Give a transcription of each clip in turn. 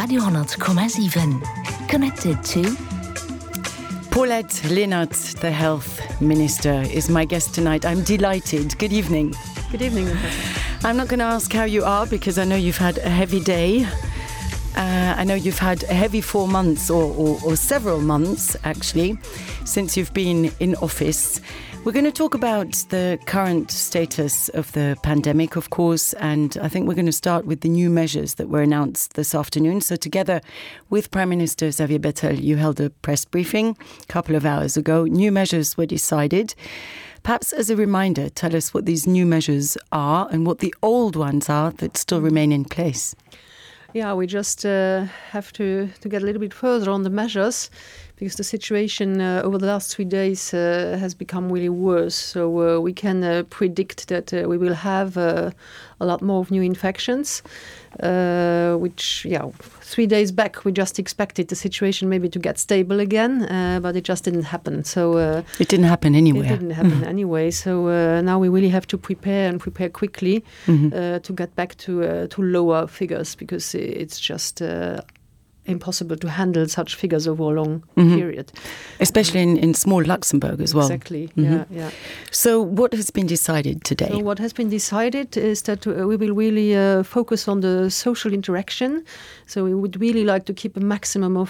Radio 10,7. Connected to Paulette Linnart, the Health Minister, is my guest tonight. I'm delighted. Good evening. Good evening, Natasha. I'm not going to ask how you are because I know you've had a heavy day. I know you've had a heavy 4 months or several months, actually, since you've been in office. We're going to talk about the current status of the pandemic, of course, and I think we're going to start with the new measures that were announced this afternoon. So together with Prime Minister Xavier Bettel, you held a press briefing a couple of hours ago. New measures were decided. Perhaps as a reminder, tell us what these new measures are and what the old ones are that still remain in place. Yeah, we just have to get a little bit further on the measures because the situation over the last 3 days has become really worse. So we can predict that we will have a lot more of new infections, which, 3 days back we just expected the situation maybe to get stable again, but it just didn't happen. So it didn't happen anywhere. It didn't happen anyway. So now we really have to prepare quickly to get back to lower figures because it's just impossible to handle such figures over a long period. Especially in small Luxembourg as well. Exactly, yeah. So what has been decided today? So what has been decided is that we will really focus on the social interaction. So we would really like to keep a maximum of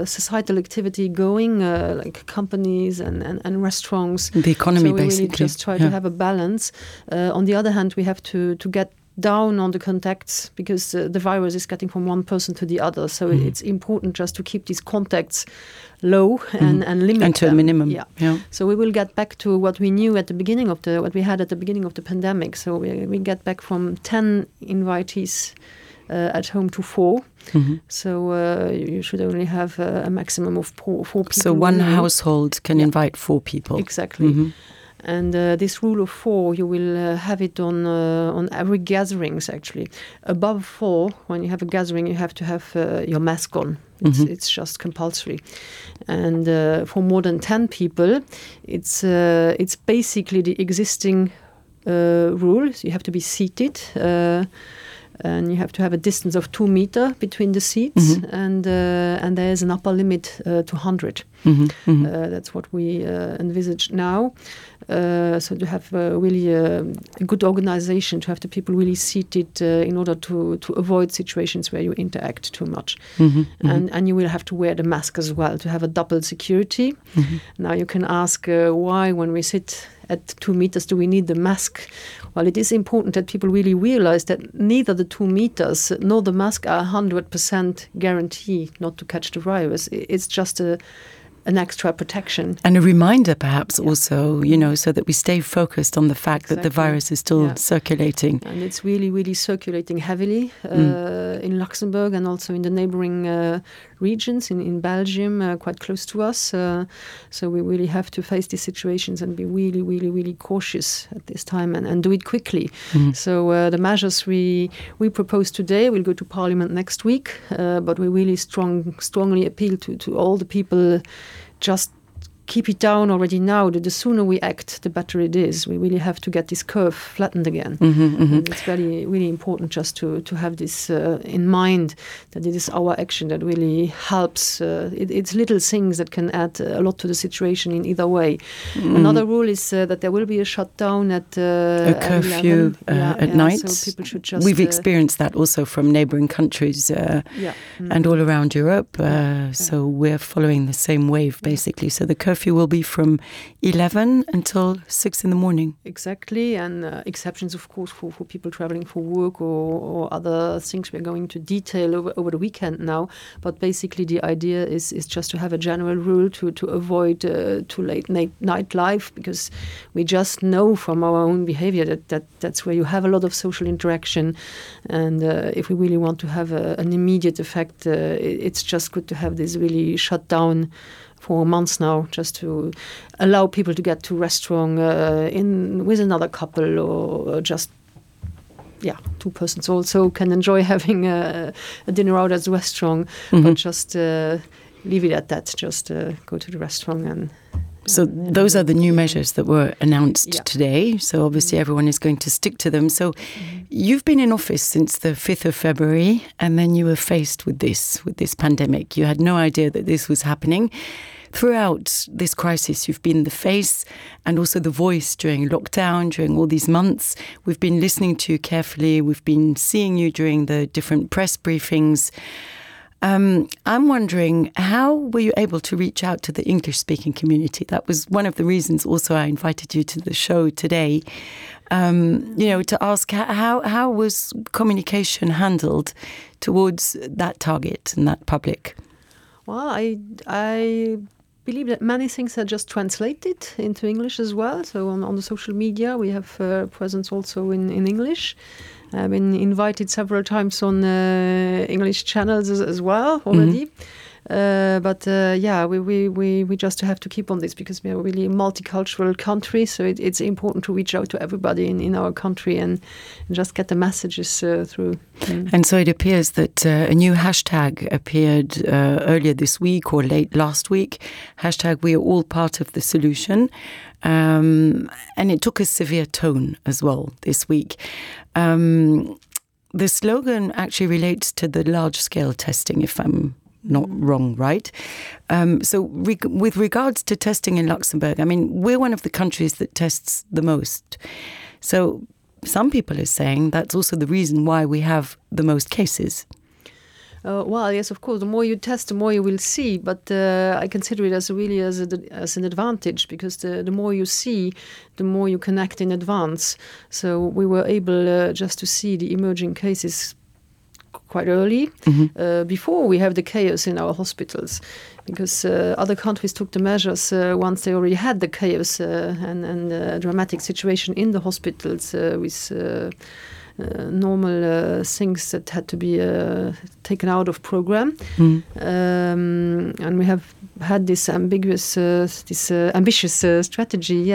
societal activity going, like companies and restaurants. The economy, so we basically. Really just try to have a balance. On the other hand, we have to get down on the contacts because the virus is getting from one person to the other. So it's important just to keep these contacts low and limit and to them. a minimum. Yeah. So we will get back to what we knew at the beginning of what we had at the beginning of the pandemic. So we get back from 10 invitees at home to 4. So you should only have a maximum of four people. So one household can invite 4 people. Exactly. And this rule of 4, you will have it on every gatherings, actually. Above 4, when you have a gathering, you have to have your mask on. It's just compulsory. And for more than 10 people, it's basically the existing rules. You have to be seated. And you have to have a distance of 2 meters between the seats, and there is an upper limit to 100. That's what we envisage now. So to have really a good organization, to have the people really seated in order to avoid situations where you interact too much. And you will have to wear the mask as well to have a double security. Now you can ask why when we sit at 2 meters do we need the mask? Well, it is important that people really realize that neither the 2 meters nor the mask are 100% guarantee not to catch the virus. It's just an extra protection. And a reminder perhaps also, so that we stay focused on the fact that the virus is still circulating. And it's really, really circulating heavily in Luxembourg and also in the neighboring regions, in Belgium, quite close to us. So we really have to face these situations and be really, really, really cautious at this time and do it quickly. So the measures we propose today will go to Parliament next week, but we really strongly appeal to all the people. Just keep it down already now. The sooner we act, the better it is. We really have to get this curve flattened again. And it's really, really important just to have this in mind, that it is our action that really helps. It's little things that can add a lot to the situation in either way. Another rule is that there will be a shutdown at a curfew at night. So people should just, we've experienced that also from neighbouring countries and all around Europe. So we're following the same wave, basically. So the curfew will be from 11 until 6 in the morning. Exactly, and exceptions, of course, for people traveling for work or other things we're going to detail over the weekend now. But basically the idea is just to have a general rule to avoid too late night life, because we just know from our own behavior that's where you have a lot of social interaction. And if we really want to have an immediate effect, it's just good to have this really shut down for months now, just to allow people to get to restaurant with another couple or just 2 persons also can enjoy having a dinner out at the restaurant, but just leave it at that. Just go to the restaurant So those are the new measures that were announced today. So obviously everyone is going to stick to them. So you've been in office since the 5th of February, and then you were faced with this pandemic. You had no idea that this was happening. Throughout this crisis, you've been the face and also the voice during lockdown, during all these months. We've been listening to you carefully. We've been seeing you during the different press briefings. I'm wondering, how were you able to reach out to the English-speaking community? That was one of the reasons also I invited you to the show today, to ask how was communication handled towards that target and that public? Well, I believe that many things are just translated into English as well. So on the social media, we have presence also in English. I've been invited several times on English channels as well already. We just have to keep on this because we are really a multicultural country. So it's important to reach out to everybody in our country and just get the messages through. And so it appears that a new hashtag appeared earlier this week or late last week. Hashtag We Are All Part of the Solution. And it took a severe tone as well this week. The slogan actually relates to the large-scale testing, if I'm not wrong, right? With regards to testing in Luxembourg, I mean, we're one of the countries that tests the most. So some people are saying that's also the reason why we have the most cases. Well, yes, of course. The more you test, the more you will see. But I consider it as an advantage because the more you see, the more you can act in advance. So we were able just to see the emerging cases quite early, before we have the chaos in our hospitals, because other countries took the measures once they already had the chaos and dramatic situation in the hospitals with normal things that had to be taken out of program. And we have had this ambitious strategy,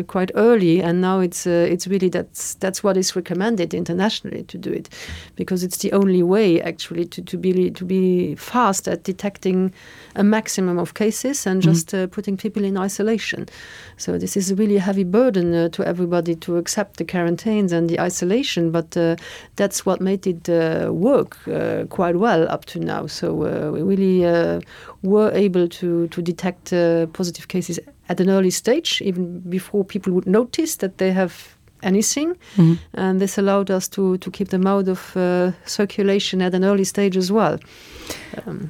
quite early, and now it's really that's what is recommended internationally to do it, because it's the only way actually to be fast at detecting a maximum of cases and just putting people in isolation. So this is a really heavy burden to everybody to accept the quarantines and the isolation, but that's what made it work quite well up to now. So we really were able to detect positive cases at an early stage, even before people would notice that they have anything. And this allowed us to keep them out of circulation at an early stage as well.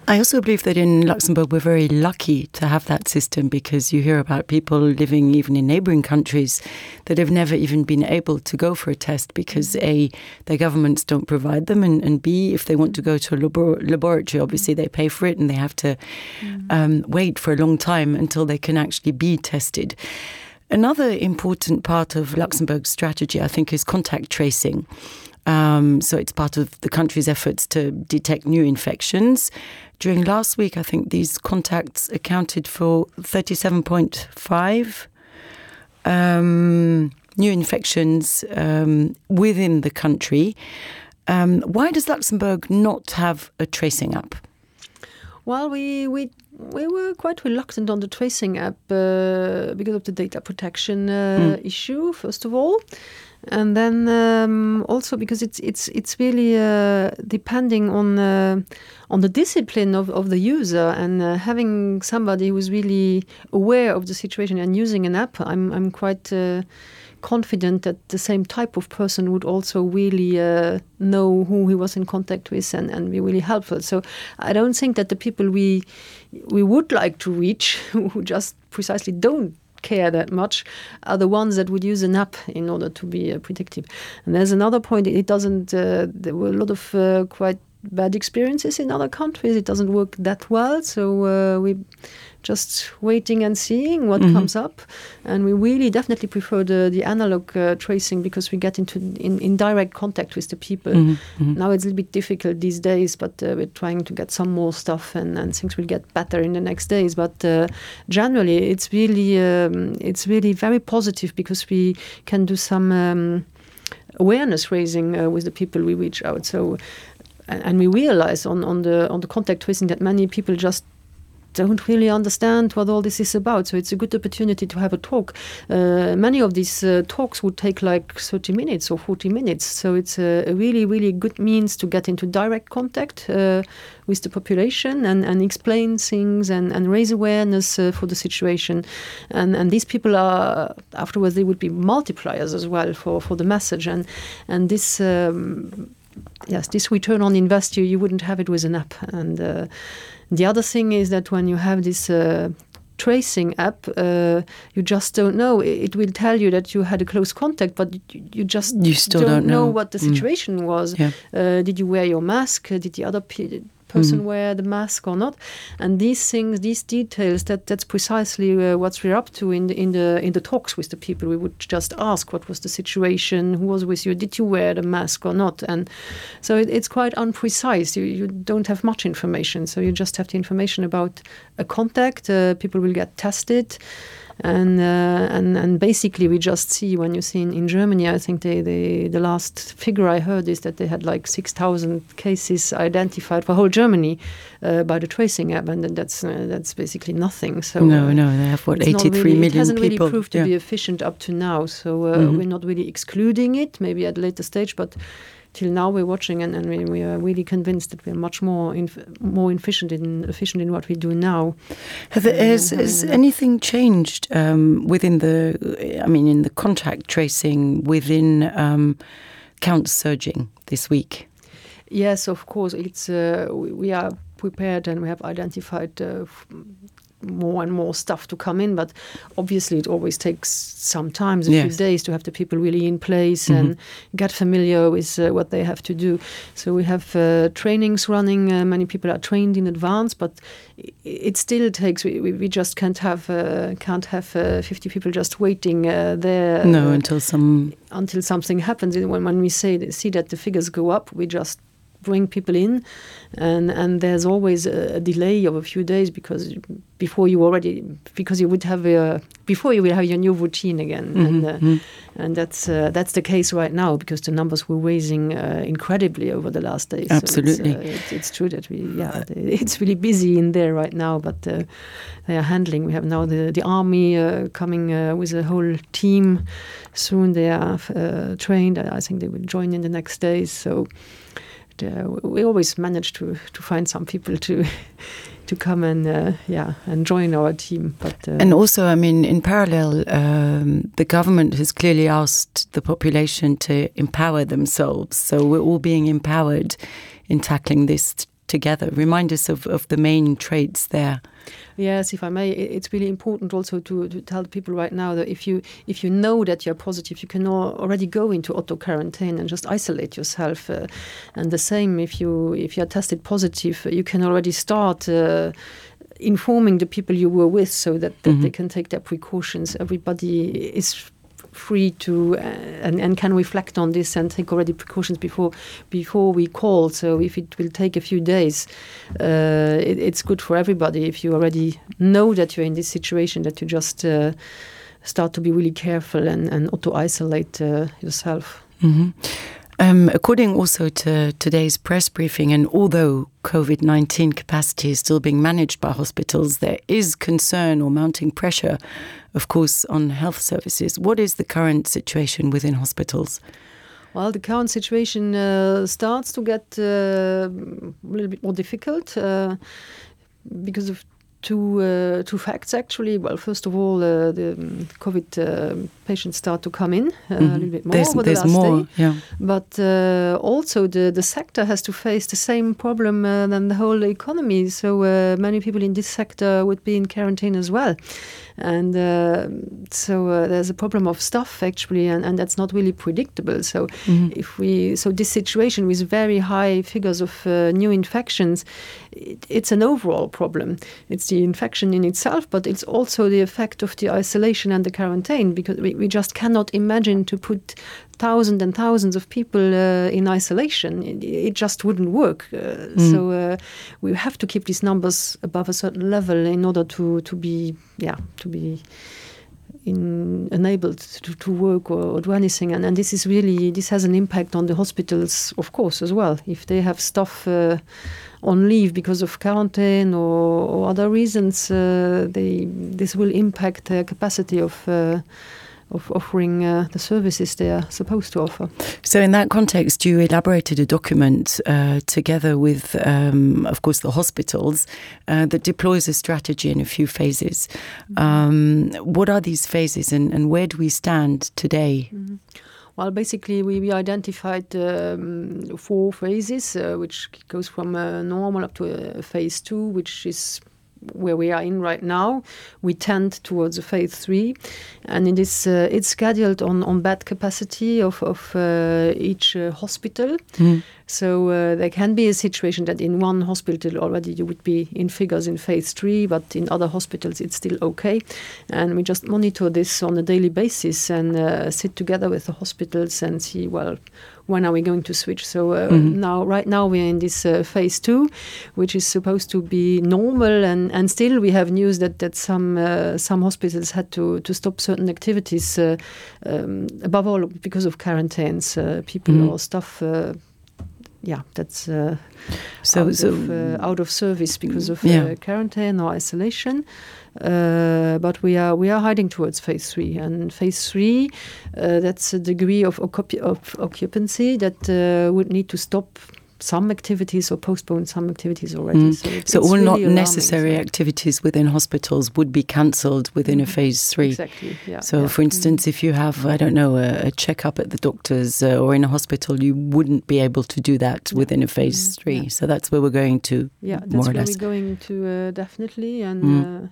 I also believe that in Luxembourg we're very lucky to have that system, because you hear about people living even in neighbouring countries that have never even been able to go for a test because A, their governments don't provide them, and B, if they want to go to a laboratory, obviously they pay for it and they have to wait for a long time until they can actually be tested. Another important part of Luxembourg's strategy, I think, is contact tracing. So it's part of the country's efforts to detect new infections. During last week, I think these contacts accounted for 37.5 new infections within the country. Why does Luxembourg not have a tracing app? Well, we were quite reluctant on the tracing app because of the data protection issue, first of all. And then also because it's really depending on the discipline of the user, and having somebody who's really aware of the situation and using an app, I'm quite confident that the same type of person would also really know who he was in contact with and be really helpful. So I don't think that the people we would like to reach, who just precisely don't care that much, are the ones that would use an app in order to be predictive. And there's another point, it doesn't, there were a lot of quite bad experiences in other countries. It doesn't work that well, so we just waiting and seeing what comes up. And we really definitely prefer the analog tracing, because we get in direct contact with the people. Now it's a little bit difficult these days, but we're trying to get some more stuff, and things will get better in the next days. But generally, it's really very positive, because we can do some awareness raising with the people we reach out. So, and we realize on the contact tracing that many people just don't really understand what all this is about. So it's a good opportunity to have a talk. Many of these talks would take like 30 minutes or 40 minutes. So it's a really, really good means to get into direct contact with the population and explain things and raise awareness for the situation. And these people are, afterwards, they would be multipliers as well for the message. And this... yes, this return on invest, you wouldn't have it with an app. And the other thing is that when you have this tracing app, you just don't know. It will tell you that you had a close contact, but you still don't know what the situation was. Yeah. Did you wear your mask? Did the other person wear the mask or not? And these things, these details, that's precisely what we're up to in the talks with the people. We would just ask, what was the situation? Who was with you? Did you wear the mask or not? And so it's quite unprecise. You don't have much information. So you just have the information about a contact. People will get tested. And basically we just see, when you see in Germany, I think the last figure I heard is that they had like 6,000 cases identified for whole Germany by the tracing app, and that's basically nothing. So no, they have 83 million people. It hasn't really proved to be efficient up to now. So we're not really excluding it, maybe at a later stage, but till now we're watching, and we are really convinced that we're much more efficient in what we do now. Has anything changed within in the contact tracing within counts surging this week? Yes, of course. It's we are prepared and we have identified more and more stuff to come in, but obviously it always takes some time, a few days, to have the people really in place and get familiar with what they have to do. So we have trainings running. Many people are trained in advance, but it still takes. We just can't have 50 people just waiting there. No, until something happens. When we see that the figures go up, we just bring people in, and there's always a delay of a few days because you will have your new routine again, and that's the case right now because the numbers were raising incredibly over the last days. Absolutely, so it's true that it's really busy in there right now, but they are handling. We have now the army coming with a whole team soon. They are trained. I think they will join in the next days. So. We always manage to find some people to come and join our team. But and also, in parallel, the government has clearly asked the population to empower themselves. So we're all being empowered in tackling this together. Remind us of the main traits there. Yes, if I may, it's really important also to tell people right now that if you know that you're positive, you can already go into auto quarantine and just isolate yourself. And the same, if you're tested positive, you can already start informing the people you were with so that they can take their precautions. Everybody is free to and can reflect on this and take already precautions before we call. So if it will take a few days, it's good for everybody if you already know that you're in this situation, that you just start to be really careful and auto-isolate yourself. According also to today's press briefing, and although COVID-19 capacity is still being managed by hospitals, there is concern or mounting pressure, of course, on health services. What is the current situation within hospitals? Well, the current situation starts to get a little bit more difficult because of two facts, actually. Well, first of all, the COVID patients start to come in a little bit more over the last day. Yeah. But also the sector has to face the same problem than the whole economy. So many people in this sector would be in quarantine as well. And so there's a problem of staff, actually, and that's not really predictable. So this situation with very high figures of new infections, it's an overall problem. It's the infection in itself, but it's also the effect of the isolation and the quarantine, because we just cannot imagine to put thousands and thousands of people in isolation. It just wouldn't work. So we have to keep these numbers above a certain level in order to be enabled to work or do anything, and this has an impact on the hospitals, of course, as well. If they have staff on leave because of quarantine or other reasons, this will impact their capacity of offering the services they are supposed to offer. So in that context, you elaborated a document together with, of course, the hospitals that deploys a strategy in a few phases. What are these phases and where do we stand today? Well, basically, we identified 4 phases, which goes from normal up to phase 2, which is where we are in right now. We tend towards a phase 3, and it is it's scheduled on bed capacity of each hospital. So there can be a situation that in one hospital already you would be in figures in phase 3, but in other hospitals it's still okay. And we just monitor this on a daily basis and sit together with the hospitals and see, well, when are we going to switch? So right now we're in this phase 2, which is supposed to be normal, and still we have news that some hospitals had to stop certain activities, above all because of quarantines, people or staff. That's out of service because of quarantine or isolation. But we are heading towards phase 3, and phase 3 that's a degree of occupancy that would need to stop some activities or postpone some activities already. So all really not necessary activities within hospitals would be cancelled within a phase 3. Exactly. Yeah. So, for instance, if you have, I don't know, a checkup at the doctor's or in a hospital, you wouldn't be able to do that within a phase 3. Yeah. So that's where we're going to. Yeah, that's where we're going to definitely, and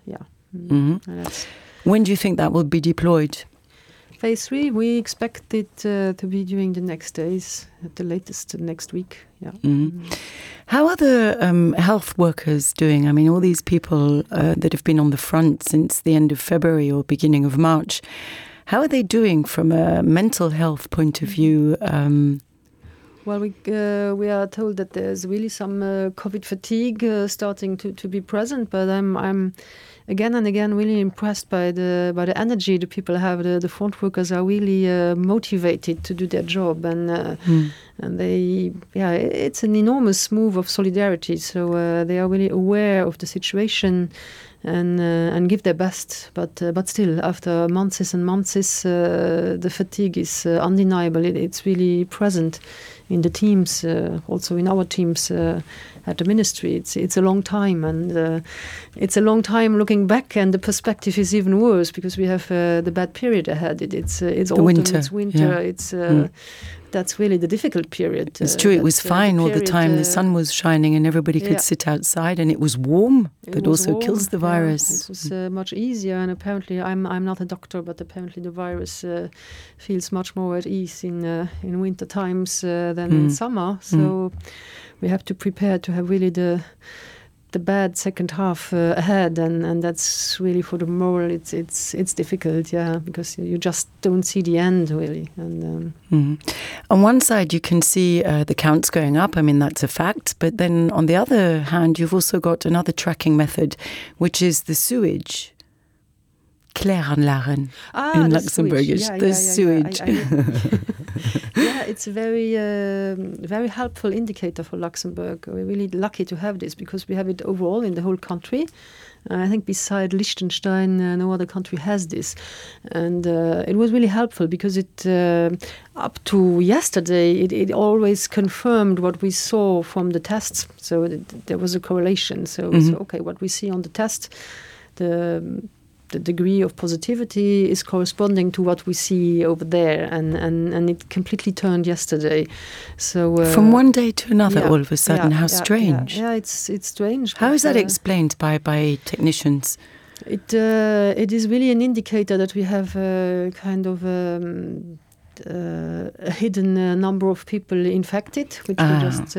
When do you think that will be deployed? Phase 3, we expect it to be during the next days, at the latest next week. Yeah. How are the health workers doing? I mean, all these people that have been on the front since the end of February or beginning of March, how are they doing from a mental health point of view? Well, we are told that there's really some COVID fatigue starting to be present, but I'm again and again really impressed by the energy the people have. The front workers are really motivated to do their job, and it's an enormous move of solidarity. So they are really aware of the situation and give their best. But still, after months and months, the fatigue is undeniable. It's really present in the teams, also in our teams at the ministry. It's a long time, and it's a long time looking back, and the perspective is even worse because we have the bad period ahead. It's autumn, winter. it's winter, that's really the difficult period. It's true, it was fine all the time. The sun was shining and everybody could sit outside, and it was warm. That also warm. Kills the virus. It was much easier, and apparently I'm not a doctor, but apparently the virus feels much more at ease in winter times than in summer. So we have to prepare to have really the bad second half ahead, and that's really for the moral. It's difficult, because you just don't see the end really. And on one side, you can see the counts going up. I mean, that's a fact. But then on the other hand, you've also got another tracking method, which is the sewage. Kläranlagen in Luxembourgish. The sewage. It's a very helpful indicator for Luxembourg. We're really lucky to have this because we have it overall in the whole country. I think beside Liechtenstein, no other country has this. And it was really helpful because it, up to yesterday, it always confirmed what we saw from the tests. So there was a correlation. So, okay, what we see on the test, the degree of positivity is corresponding to what we see over there, and it completely turned yesterday. So from one day to another, all of a sudden, how strange! Yeah, it's strange. How is that explained by technicians? It is really an indicator that we have kind of a hidden number of people infected, which we just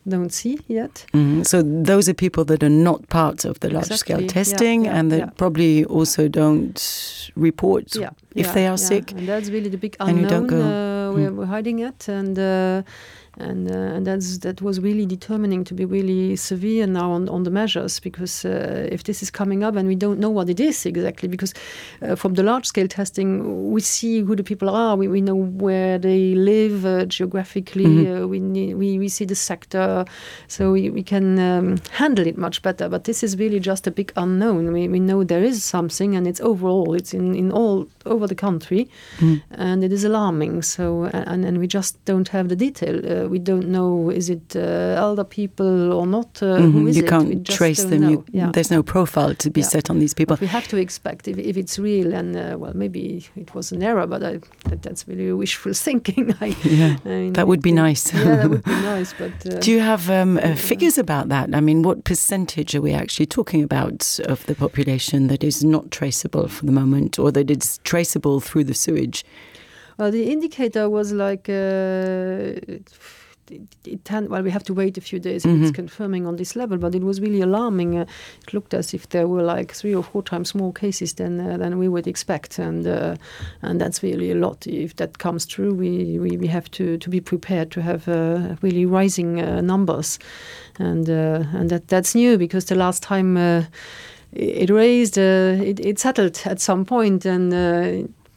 don't see yet. So those are people that are not part of the large-scale testing and that probably also don't report if they are sick. And that's really the big unknown we're hiding it. and that was really determining to be really severe now on the measures, because if this is coming up and we don't know what it is exactly, because from the large-scale testing we see who the people are, we know where they live geographically, we see the sector, so we can handle it much better. But this is really just a big unknown. We know there is something, and it's overall, it's in all over the country, and it is alarming. So and we just don't have the detail. We don't know, is it elder people or not? Who is you it? can't trace them. There's no profile to be set on these people. But we have to expect if it's real, and well, maybe it was an error, but that's really wishful thinking. I mean, that would be nice. Yeah, that would be nice. But do you have figures about that? I mean, what percentage are we actually talking about of the population that is not traceable for the moment, or that it's traceable through the sewage? Well, the indicator was like we have to wait a few days if it's confirming on this level, but it was really alarming. It looked as if there were like 3 or 4 times more cases than we would expect, and that's really a lot. If that comes true, we have to be prepared to have really rising numbers, and that's new, because the last time it raised, it settled at some point, and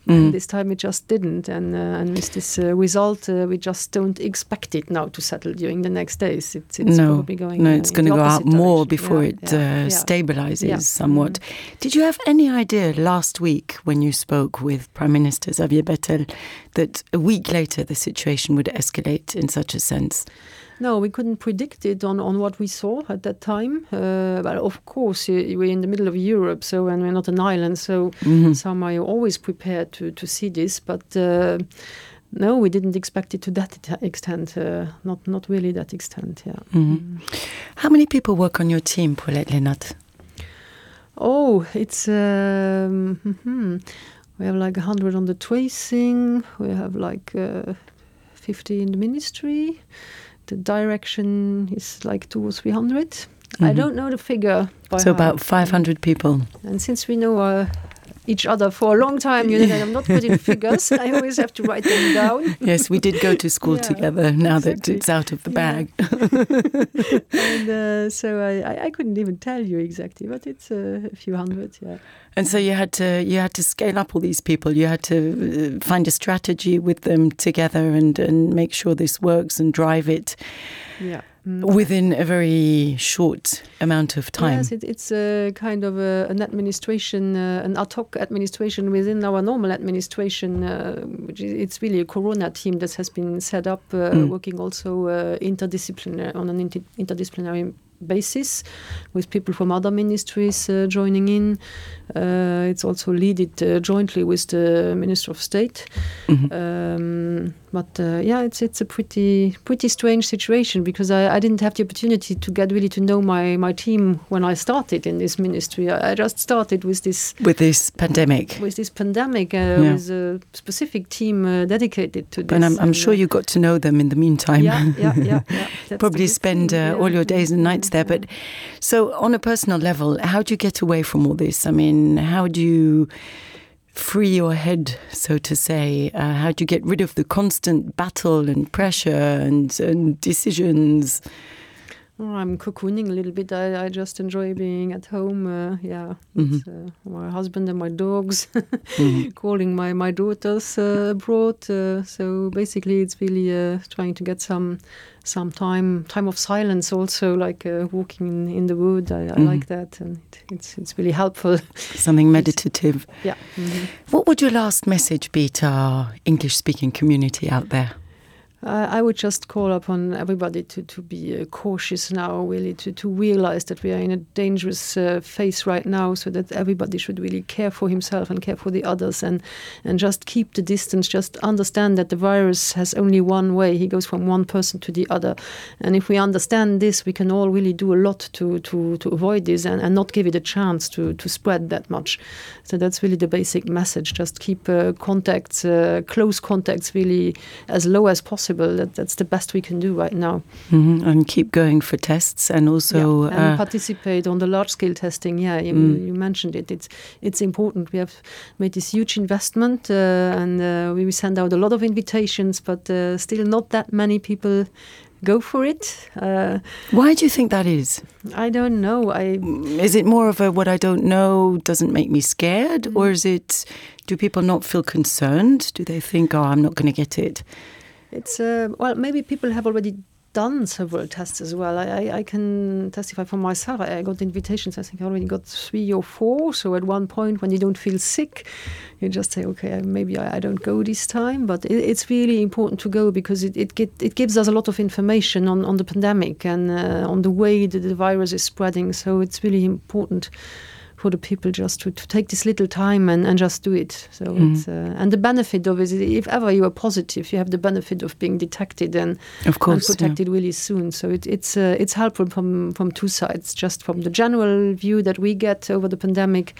this time it just didn't, and with this result, we just don't expect it now to settle during the next days. It's probably going. No, it's going to go out more before it stabilizes somewhat. Did you have any idea last week when you spoke with Prime Minister Xavier Bettel that a week later the situation would escalate in such a sense? No, we couldn't predict it on what we saw at that time. But of course, we're in the middle of Europe, and we're not an island, so somehow you're always prepared to see this. But no, we didn't expect it to that extent. Not really that extent. Yeah. How many people work on your team, Paulette Leenaert? Oh, it's we have like 100 on the tracing. We have like 50 in the ministry. The direction is like 200 or 300. I don't know the figure. So about 500 people. And since we know each other for a long time, you know that I'm not good in figures. I always have to write them down. Yes, we did go to school together now that it's out of the bag. And so I couldn't even tell you exactly, but it's a few hundred, And so you had to scale up all these people. You had to find a strategy with them together and make sure this works and drive it within a very short amount of time. Yes, it's a kind of an administration, an ad hoc administration within our normal administration. It's really a Corona team that has been set up, working also interdisciplinary on an interdisciplinary basis, with people from other ministries joining in. It's also led jointly with the Minister of State. But it's a pretty strange situation, because I didn't have the opportunity to get really to know my team when I started in this ministry. I just started with this pandemic. With a specific team dedicated to this. And I'm sure you got to know them in the meantime. Yeah. Probably spend all your days and nights there. But so on a personal level, how do you get away from all this? I mean, how do you free your head, so to say? How do you get rid of the constant battle and pressure and decisions? I'm cocooning a little bit. I just enjoy being at home. My husband and my dogs, calling my daughters abroad. So basically, it's really trying to get some time of silence. Also, like walking in the wood. I like that, and it's really helpful. Something meditative. Yeah. What would your last message be to our English-speaking community out there? I would just call upon everybody to be cautious now, really, to realize that we are in a dangerous phase right now, so that everybody should really care for himself and care for the others, and just keep the distance, just understand that the virus has only one way. He goes from one person to the other. And if we understand this, we can all really do a lot to avoid this and not give it a chance to spread that much. So that's really the basic message. Just keep close contacts really as low as possible, possible. That's the best we can do right now. And keep going for tests and also and participate on the large-scale testing. Yeah, you mentioned it. It's important. We have made this huge investment and we send out a lot of invitations, but still not that many people go for it. Why do you think that is? I don't know. Is it more of a what I don't know doesn't make me scared, or is it? Do people not feel concerned? Do they think, oh, I'm not going to get it? It's well, maybe people have already done several tests as well. I can testify for myself. I got invitations. I think I already got 3 or 4. So at one point, when you don't feel sick, you just say, okay, maybe I don't go this time. But it's really important to go because it gives us a lot of information on the pandemic and on the way that the virus is spreading. So it's really important for the people just to take this little time and just do it. So it's, and the benefit of it is if ever you are positive, you have the benefit of being detected and protected really soon. So it's helpful from two sides, just from the general view that we get over the pandemic,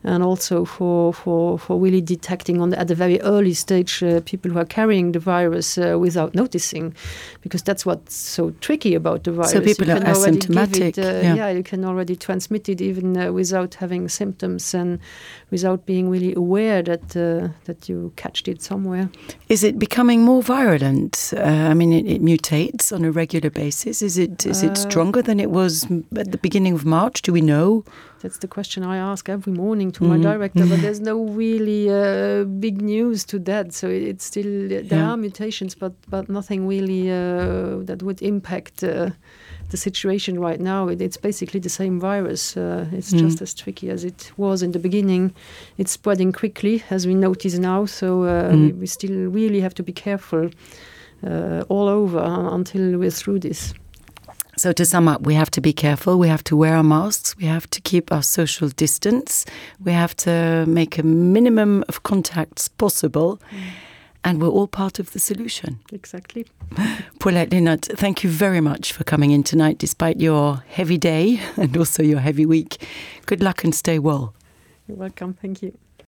and also for really detecting at the very early stage people who are carrying the virus without noticing, because that's what's so tricky about the virus. So people are asymptomatic. You can already transmit it even without having symptoms and without being really aware that you catched it somewhere. Is it becoming more virulent? I mean, it mutates on a regular basis. Is it stronger than it was at the beginning of March? Do we know? That's the question I ask every morning to my director, but there's no really big news to that. So it's still, there are mutations, but nothing really that would impact the situation right now. It's basically the same virus. It's just as tricky as it was in the beginning. It's spreading quickly, as we notice now. So we still really have to be careful all over until we're through this. So to sum up, we have to be careful. We have to wear our masks. We have to keep our social distance. We have to make a minimum of contacts possible. And we're all part of the solution. Exactly. Paulette Linnert, thank you very much for coming in tonight, despite your heavy day and also your heavy week. Good luck and stay well. You're welcome. Thank you.